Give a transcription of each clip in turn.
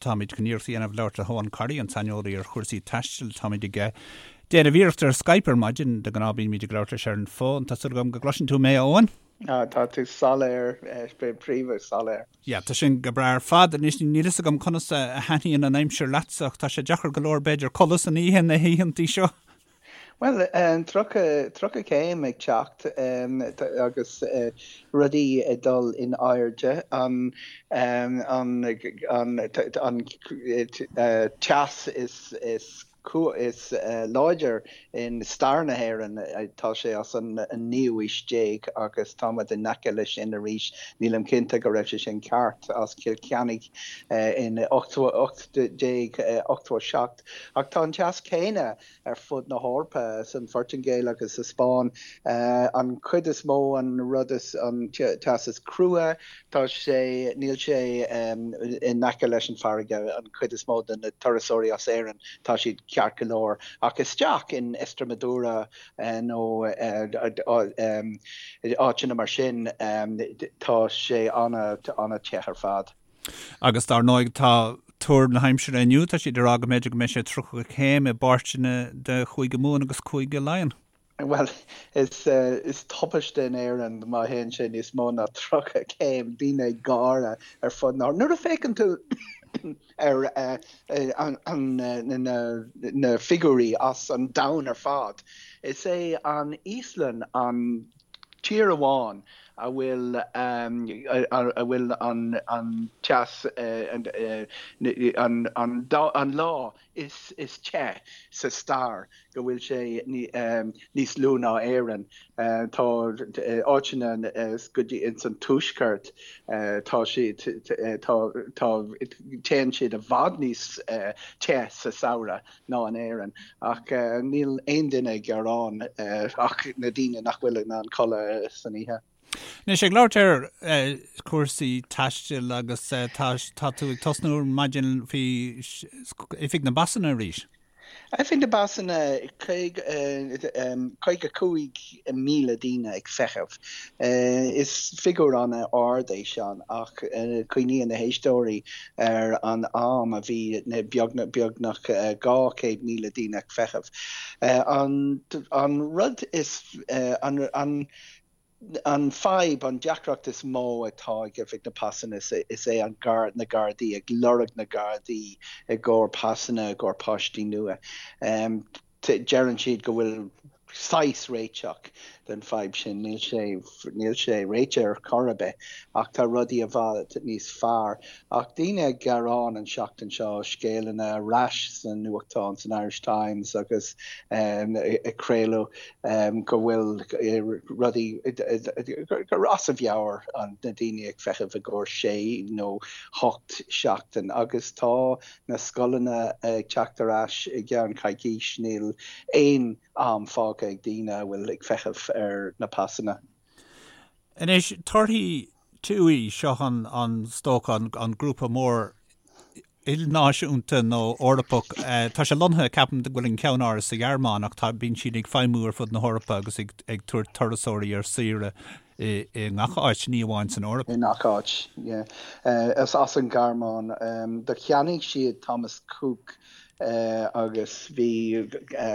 Táimid chun iarracht a dhéanamh labhairt le hEoghan Corry, an saineolaí ar chúrsaí taistil. Táimid ag déanamh iarracht ar Skype ar maidin. De ghnáth bímid ag labhairt leis ar an bhfón. Tá súil agam go gcloiseann tú mé, a Eoghain? Tá tú soiléir, príomha soiléir. Yeah, tá sin go breá ar fad. Anois, níl fhios agam conas a thaitníonn an aimsir leatsa ach tá sé deacair go leor b'fhéidir codladh san oíche na hoícheantaí seo. Bhuel, 30, 30 céim ag teacht agus rudaí ag dul in airde, an, an, an teas is, is, is láidir in stair na hÉireann, tá sé as an naoú aois déag agus táimid in aice leis sin arís. Nílim cinnte go raibh sé sin ceart as Cill Chainnigh in 1887 ach tá an teas céanna ar fud na hEorpa, san Phortaingéil agus sa Spáinn. An chuid is mó, an rud is, an teas is crua, tá sé, níl sé in aice leis an farraige, an chuid is mó de na turasóirí as Éirinn, tá siad ceart go leor. Ach isteach in Estremadura nó áiteanna mar sin, tá sé an-te ar fad. Agus dar ndóigh tá tuar na haimsire inniu, tá siad ag rá go mb'fhéidir go mbeidh sé 30 céim i bpáirteanna de Chúige Mumhan agus Cúige Laighean. Bhuel, is is tubaiste in Éirinn má théann sé níos mó ná 30 céim, daoine ag gáire ar fud na Nuair a féachann tú ar na figiúirí as an domhan ar fad, is é an Íoslainn an tír amháin a bhfuil a bhfuil an teas an lá is te sa stair go bhfuil sé níos lú ná Éirinn. Tá áiteanna go dtí ins an tuaisceart tá siad tá tá téann siad i bhfad níos te sa samhradh. ná in Éirinn, ach níl aon duine ag gearán ach na daoine nach bhfuil in ann codladh san oíche. Anois, ag labhairt ar chúrsaí taistil agus tá tá tú ag tosnú ar maidin faoi Oifig na bPasanna arís. Oifig na bPasanna, 55,000 daoine ag feitheamh. Is figiúr an-ard é sin ach cuimhníonn na héisteoirí ar an am a bhí beagnach 200,000 daoine ag feitheamh. An rud is, an an fadhb, an deacracht is mó atá ag Oifig na Pasanna is é an na Gardaí, ag lorg na Gardaí i gcomhair pasanna i gcomhair páistí nua. Deireann siad go bhfuil saghas réiteach den fadhb sin. Níl sé, níl sé réitithe ar chor ar bith ach tá rudaí i bhfad níos fearr. Ach daoine ag gearán an seachtain seo, scéalanna ar ais sna nuachtáin, san Irish Times agus ag craoladh go bhfuil rudaí, gur as a mheabhair na daoine ag feitheamh i gcomhair sé nó hocht seachtain agus tá na scoileanna ag teacht ar ais i gceann coicís, níl aon am fágtha ag daoine a bhfuil ag feitheamh ar na pasanna. Anois, torthaí TUI, seo an, an, is dócha, an grúpa mór ilnáisiúnta nó Eorpach. Tá sé lonnaithe, ceapaim, go bhfuil an ceannáras sa Ghearmáin ach tá, bíonn siad ag feidhmiú ar fud na hEorpa agus ag, ag tabhairt turasóirí ar saoire i, i ngach áit, ní amháin san Eoraip. I ngach áit, yeah. Is as an Ghearmáin. Do cheannaigh siad Thomas Cook agus bhí,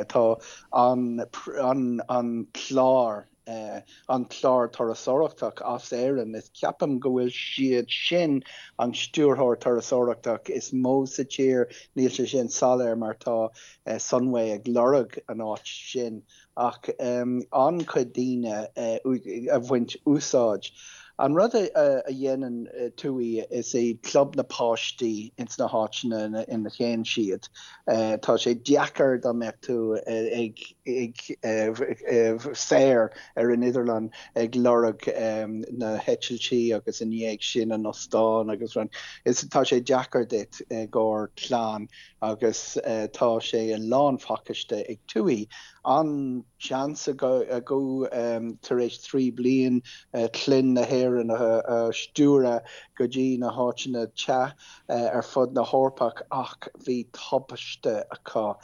tá an, an, an clár an clár turasóireachtach as Éirinn. Is ceapaim go bhfuil siad sin an stiúrthóir turasóireachtach is mó sa tír, níl sé sin soiléir mar tá Sunway ag lorg an áit sin ach an-chuid daoine a bhaint úsáid. An rud a dhéanann TUI is é club na páistí ins na háiteanna ina théann siad. Tá sé deacair dá mbeadh tú ag saor ar an idirlíon ag lorg na heitiltí agus i ndiaidh sin an ostán agus rud. Is tá sé deacair duit i gcomhair clann agus tá sé i lánphacáiste ag TUI. An seans acu tar éis 3 bliain clainn na hÉireann a stiúradh go dtí na háiteanna te ar fud na hEorpach ach bhí tubaiste acu.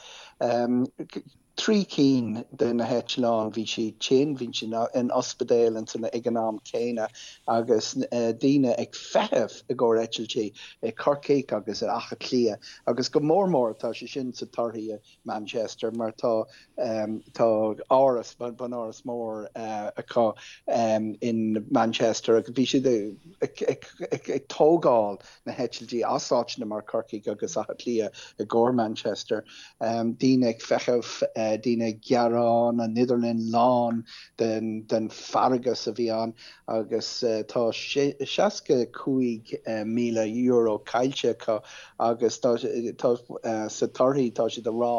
3 cinn de na heitleáin, bhí siad tinn, bhí siad in ospidéal ag an am céanna agus daoine ag feitheamh i gcomhair eitiltí i Corcaigh agus i Áth Cliath agus go mór mór tá sé sin sa torthaí i Manchester mar tá tá áras, bunáras mór acu in Manchester agus bhí siad ag tógáil na heitiltí as áiteanna mar Corcaigh agus Áth Cliath i gcomhair Manchester. Daoine ag feitheamh, daoine ag gearán, an idirlíon lán den feargas a bhí ann agus tá €65,000 caillte acu agus tá sa torthaí tá siad ag rá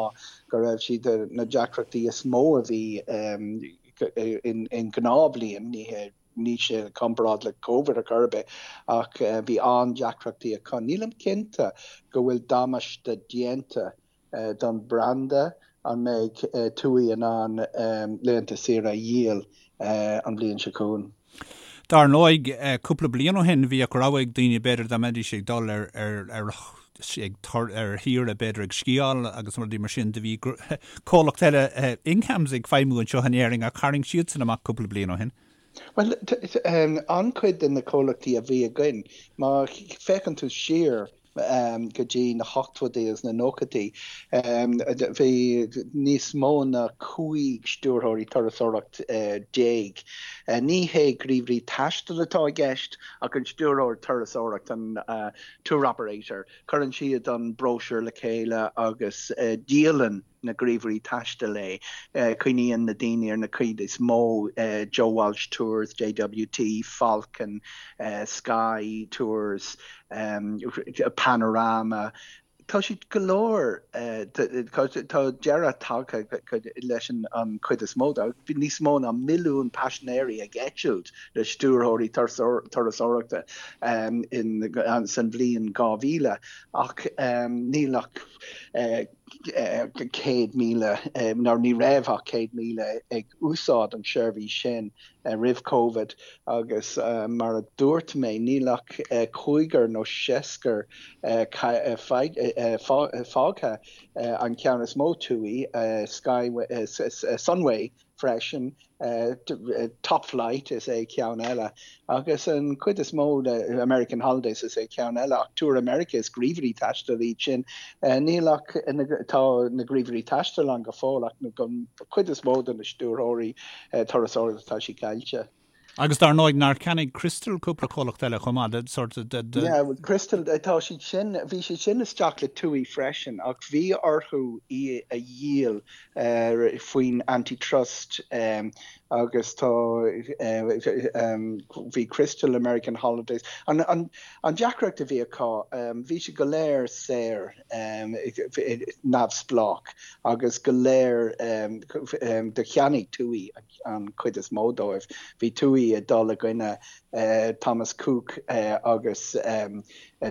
go raibh siad na deacrachtaí is mó a bhí in gnáthbhliain, ní hé ní sé i gcomparáid le Covid ar chor ar bith ach bhí an-deacrachtaí acu. Nílim cinnte go bhfuil damáiste déanta don branda, an mbeidh TUI in ann laethanta saoire a dhíol an bhliain seo chugainn? Dar ndóigh, cúpla bliain ó shin bhíodh rogha ag daoine b'fhéidir dá mbeidís ag dul ar ar ar shaoire b'fhéidir ag sciáil agus rudaí mar sin do bhí comhlacht eile Inghams ag feidhmiú anseo in Éirinn ach tharraing siadsan amach cúpla bliain ó shin. Bhuel, an-chuid de na comhlachtaí a bhí againn, má féachann tú siar go dtí na hochtóidí agus na nóchaidí, bhí níos mó ná 15 stiúrthóirí turasóireacht. Ní hé gníomhairí taistil atá i gceist ach an stiúrthóir turasóireacht, an tour operator. Cuireann siad an bróisiúr le chéile agus díolann na gníomhairí taistil é. Cuimhníonn na daoine ar na cuid is mó, Joe Walsh Tours, JWT, Falcon, Sky Tours, Panorama. Tá siad go leor, tá deireadh tagtha leis an chuid is mó de. Bhí níos mó ná milliún paisinéirí ag eitilt le stiúrthóirí turasóireachta san bhliain 2000 ach níl ach 100,000, nó ní raibh ach 100,000 ag úsáid an seirbhís sin roimh Covid agus mar a dúirt mé níl ach cúigear nó seascar fágtha, an ceann is mó TUI, Sky, Sunway freisin, Top Flight is é ceann eile agus an chuid is mó de American Holidays is é ceann eile ach Tour America is gníomhairí taistil iad sin. Níl ach, tá na gníomhairí taistil ann go fóill ach an chuid is mó de na stiúrthóirí turasóireachta tá siad caillte. Agus dar ndóigh, nár cheannaigh Crystal cúpla comhlacht eile chomh maith, sort de, de. Yeah, well Crystal, tá siad sin, bhí siad sin isteach le TUI freisin ach bhí orthu í a dhíol faoin antitrust agus tá, bhí Crystal, American Holidays, an, an, an deacracht a bhí acu, bhí siad go léir saor, neamhspleách agus go léir do cheannaigh TUI an chuid is mó dóibh. Bhí TUI ag dul i gcoinne Thomas Cook agus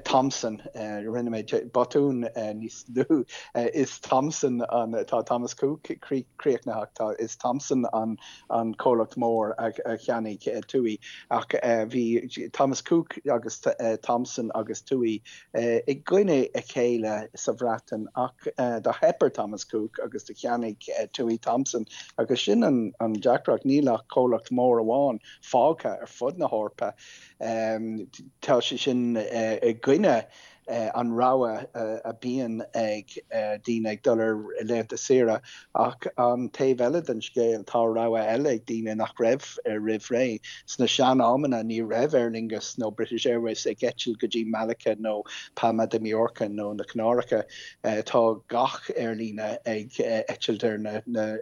Thomson, rinne mé botún níos luaithe, is Thomson an, tá Thomas Cook críochnaithe ach tá, is Thomson an an comhlacht mór a cheannaigh TUI ach bhí Thomas Cook agus Thomson agus TUI i gcoinne a chéile sa Bhreatain ach do theip ar Thomas Cook agus do cheannaigh TUI Thomson agus sin an deacracht, níl ach comhlacht mór amháin fágtha ar fud na hEorpa. Tá sé sin i gcoinne an rogha a bíonn ag daoine ag dul ar laethanta saoire ach an taobh eile den scéal tá rogha eile ag daoine nach raibh roimh ré. Sna sean-amanna ní raibh Aer Lingus nó British Airways ag eitilt go dtí Malaga nó Palma de Mallorca nó na Canáracha. Tá gach aerlíne ag eitilt ar na na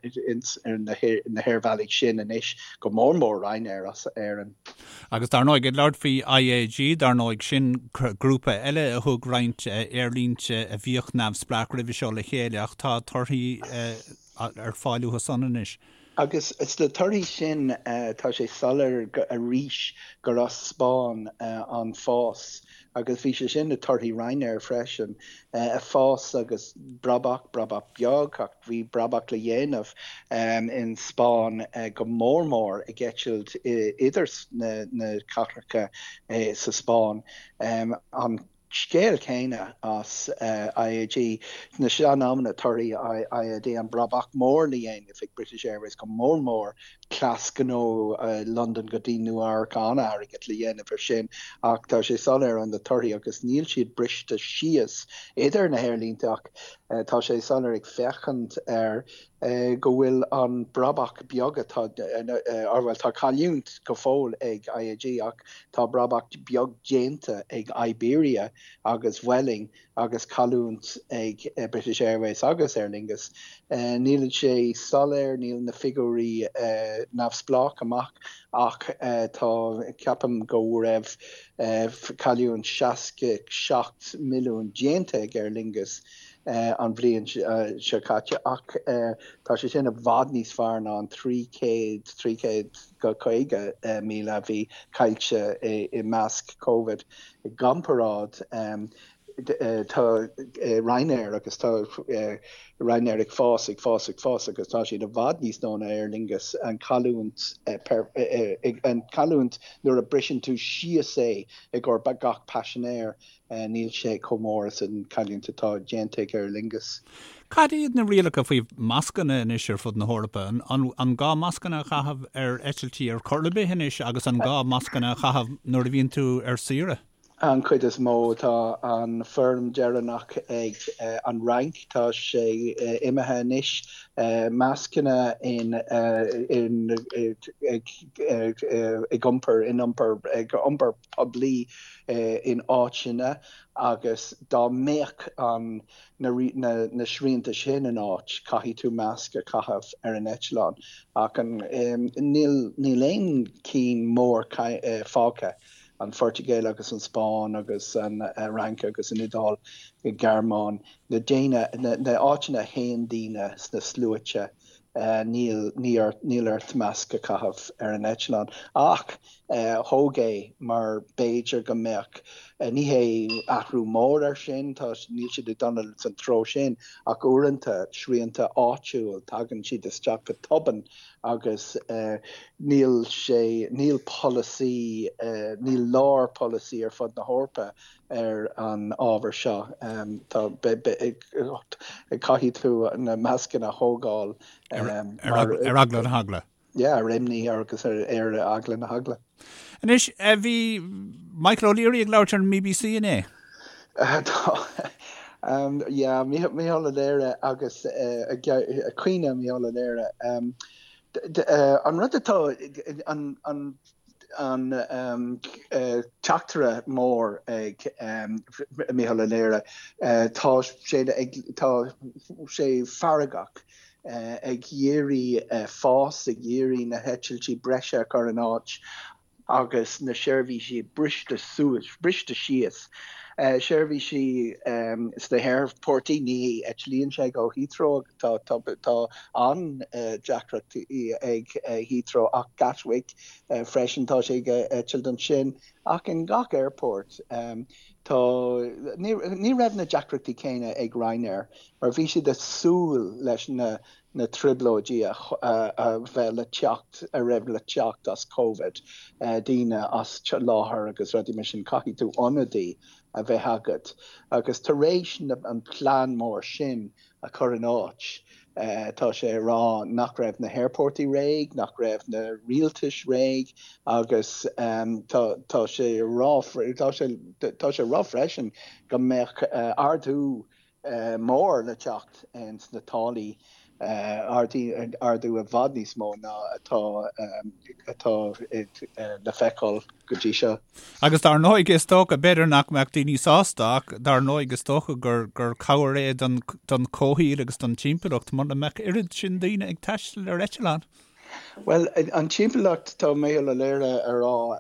haerbhealaí sin anois, go mór mór Ryanair as Éirinn. Agus dar ndóigh, ag labhairt faoi IAG, dar ndóigh, sin grúpa eile a thug roinnt aerlínte a bhíodh neamhspleách roimhe seo le chéile ach tá torthaí ar fáil uathu san anois. Agus sna torthaí sin tá sé soiléir arís gur as Spáinn an fás agus bhí sé sin i torthaí Ryanair freisin, fás agus brabach, brabach beag ach bhí brabach le dhéanamh in Spáinn go mór mór ag eitilt idir na cathracha sa Spáinn. An. scéal céanna as IAG. Sna sean-amanna torthaí IAG, an brabach mór le dhéanamh ag British Airways, go mór mór cleas gnó Londain go dtí Nua Eabhrac, an-airgead le dhéanamh ar sin ach tá sé soiléir ó na torthaí agus níl siad briste síos idir na haerlínte ach tá sé soiléir ag féachaint ar go bhfuil an brabach beag atá, or bhuel tá cailliúint go fóill ag IAG ach tá brabach beag déanta ag Iberia agus Vueling agus cailliúint ag British Airways agus Aer Lingus. Níl sé soiléir, níl na figiúirí neamhspleách amach ach tá, ceapaim go raibh cailliúint 67 milliún déanta ag Aer Lingus an bhliain seo caite ach tá sé sin i bhfad níos fearr ná an 300, 350,000 a bhí caillte i measc Covid. I gcomparáid, tá Ryanair agus tá Ryanair ag fás, ag fás, ag fás agus tá siad i bhfad níos mó ná Aer Lingus. An cailliúint, an cailliúint nuair a briseann tú síos é i gcomhair gach paisinéir, Níl sé chomh mór is an cailliúint atá déanta ag Aer Lingus. Cad iad na rialacha faoi mascanna anois ar fud na hEorpa? An gá mascanna a chaitheamh ar eitiltí ar chor ar bith anois agus an gá mascanna a chaitheamh nuair a bhíonn tú ar saoire? An chuid is mó, tá an foirm deireanach ag an Fhrainc, tá sé imithe anois. Mascanna in ag iompar in iompar ag iompar poiblí in áiteanna agus dá mbeadh an na srianta sin in áit, caithfidh tú masc a chaitheamh ar an eitleán. Ach an níl níl aon cinn mór fágtha, an Phortaingéil agus an Spáinn agus an Fhrainc agus an Iodáil, an Ghearmáin, na daoine na áiteanna a théann daoine sna sluaite níl níl ort masc a chaitheamh ar an eitleán. Ach thóg é mar b'fhéidir go mbeadh, ní hé athrú mór air sin, tá, níl siad ag dul san treo sin, ach uaireanta srianta áitiúil, tagann siad isteach go tobann agus níl sé, níl polasaí, níl lár polasaí ar fud na hEorpa ar an ábhar seo. Tá, caithfidh tú na mascanna a thógáil mar. Ar eagla na heagla. Yeah, ar imní agus ar eagla na heagla. Anois, bhí Michael O'Leary ag labhairt ar an mBBC inné. Tá, yeah, Micheál Ó Laoire agus caoineadh Micheál Ó Laoire. An rud atá, an an teachtaire mór ag Micheál Ó Laoire, tá sé ag, tá sé feargach ag iarraidh fás, ag iarraidh na heitiltí breise a chur in áit agus na seirbhísí briste suas, briste síos. Seirbhísí sna haerfoirtí, ní eitlíonn sé go Heathrow, tá tá an-deacrachtaí ag Heathrow ach Gatwick freisin, tá sé ag eitilt ansin ach in gach aerfort tá, ní raibh na deacrachtaí céanna ag Ryanair mar bhí siad ag súil leis na na trioblóidí a bheith le teacht, a raibh le teacht as Covid, daoine as láthair agus rudaí mar sin, caithfidh tú ionadaí a bheith agat. Agus tar éis an plean mór sin a chur in áit, tá sé ag rá nach raibh na haerfoirtí réidh, nach raibh na rialtais réidh agus tá tá sé ag rá tá sé tá sé ag rá freisin go mbeadh ardú mór le teacht ins na táillí, ardú i bhfad níos mó ná atá atá le feiceáil go dtí seo. Agus dar ndóigh is dócha, b'fhéidir nach mbeadh daoine sásta ach dar ndóigh is dócha gur gur cabhair é don don chomhshaol agus don timpeallacht mura mbeadh oiread sin daoine ag taisteal ar eitleán. Bhuel, an timpeallacht, tá Micheál Ó Laoire ag rá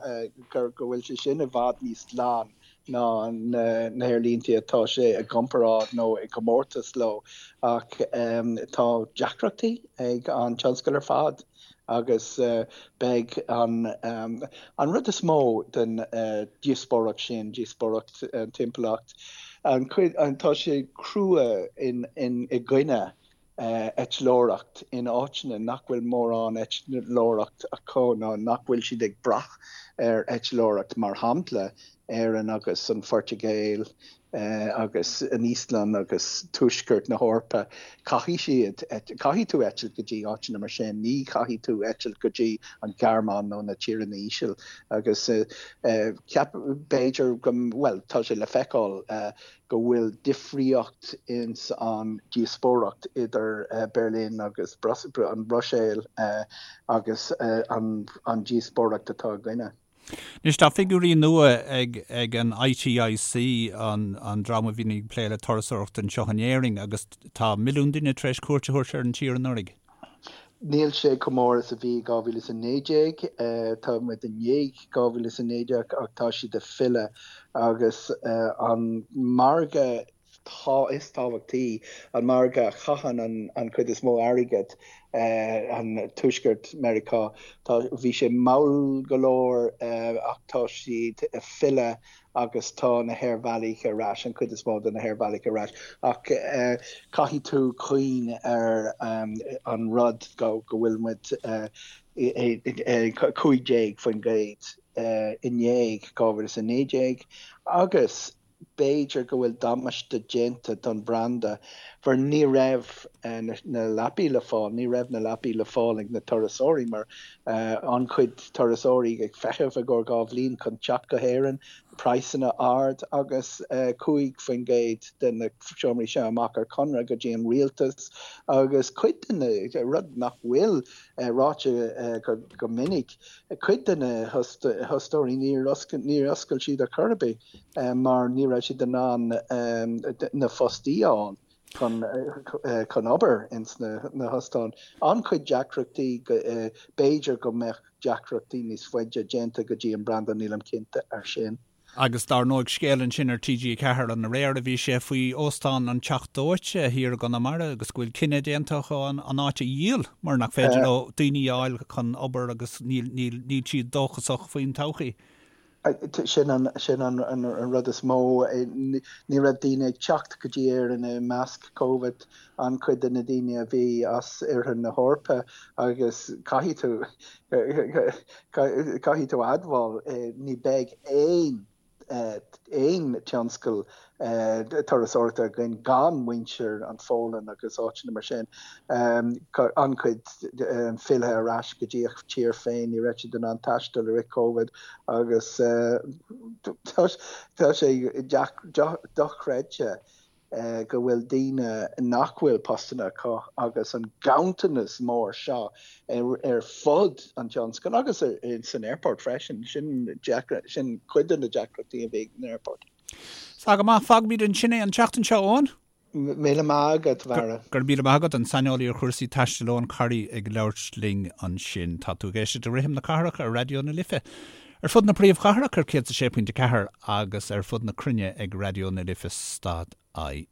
gur go bhfuil sé sin i bhfad níos glan ná na haerlínte atá sé i gcomparáid nó i gcomórtas leo ach tá deacrachtaí ag an tionscal ar fad agus beidh an an rud is mó den díospóireacht sin, díospóireacht an timpeallacht, an chuid tá sé crua in in i gcoinne eitleoireacht in áiteanna nach bhfuil mórán eitleoireacht acu nó nach bhfuil siad ag brath ar eitleoireacht, mar shampla. Éirinn agus an Phortaingéil agus an Íoslainn agus tuaisceart na hEorpa, caithfidh siad, caithfidh tú eitilt go dtí áiteanna mar sin, ní chaithfidh tú eitilt go dtí an Ghearmáin nó na tíortha íseal agus ceap, b'fhéidir go, bhuel, tá sé le feiceáil go bhfuil difríocht ins an díospóireacht idir Berlin agus an Bhruiséil agus an díospóireacht atá againne. Anois tá figiúirí nua ag ag an ITIC, an an dream a bhíonn ag plé le turasóireacht anseo in Éirinn, agus tá milliún duine tar éis cuairt a thabhairt ar an tír anuraidh. Níl sé chomh mór is a bhí i 2019. Tá muid i ndiaidh 2019 ach tá siad ag filleadh agus an margadh is tábhachtaí, an margadh a chaitheann an chuid is mó airgid, an Tuaisceart Meiriceá, tá, bhí sé mall go leor ach tá siad ag filleadh agus tá na haerbhealaí ar ais, an chuid is mó de na haerbhealaí ar ais, ach caithfidh tú cuimhneamh ar an rud go bhfuil muid 15% i ndiaidh 2019 agus b'fhéidir go bhfuil damáiste déanta don bhranda mar ní raibh na leapaí le fáil, ní raibh na leapaí le fáil ag na turasóirí mar an-chuid turasóirí ag feitheamh i gcomhair 2 bhliain chun teacht go hÉirinn, praghsanna ard agus 5% de na seomraí seo amach ar conradh go dtí an rialtas agus cuid de na, rud nach bhfuil ráite go minic, cuid de na hostóirí níor oscail siad ar chor ar bith mar ní raibh siad in ann na fostaí a fháil chun chun obair ins na hostáin. An-chuid deacrachtaí, b'fhéidir go mbeadh deacrachtaí níos faide déanta go dtí an branda, nílim cinnte ar sin. Agus dar ndóigh scéal ansin ar TG4 an aréir a bhí sé faoi óstán an Teach Dóite thiar i gConamara agus go bhfuil cinneadh déanta acu an áit a dhíol mar nach féidir leo daoine a fháil chun obair agus níl níl siad dóchasach faoin todhchaí. Sin an sin an an rud is mó. Ní raibh daoine ag teacht go dtí Éirinn i measc Covid, an-chuid de na daoine a bhí as oirthear na hEorpa agus caithfidh tú caithfidh tú admháil ní beidh aon aon tionscal turasóireachta againn gan muintir an Pholainn agus áiteanna mar sin. An-chuid fillthe ar ais go dtí a tír féin, ní raibh siad in ann taisteal i rith Covid agus tá sé dochreidte go bhfuil daoine nach bhfuil postanna acu agus an ganntanas mór seo ar fud an tionscail agus san airport freisin, sin sin cuid de na deacrachtaí a bhí ag an airport. Tá go maith, fágfaimid ansin é an tseachtain seo, Eoin. Míle maith agat, a Bharra. Go raibh míle maith agat, an saineolaí ar chúrsaí taistil Eoin Corry ag labhairt linn ansin. Tá tú ag éisteacht le Rithim na Cathrach ar Raidió na Life. Ar fud na príomhchathrach ar 106.4 agus ar fud na cruinne ag Raidió na Life stad IE.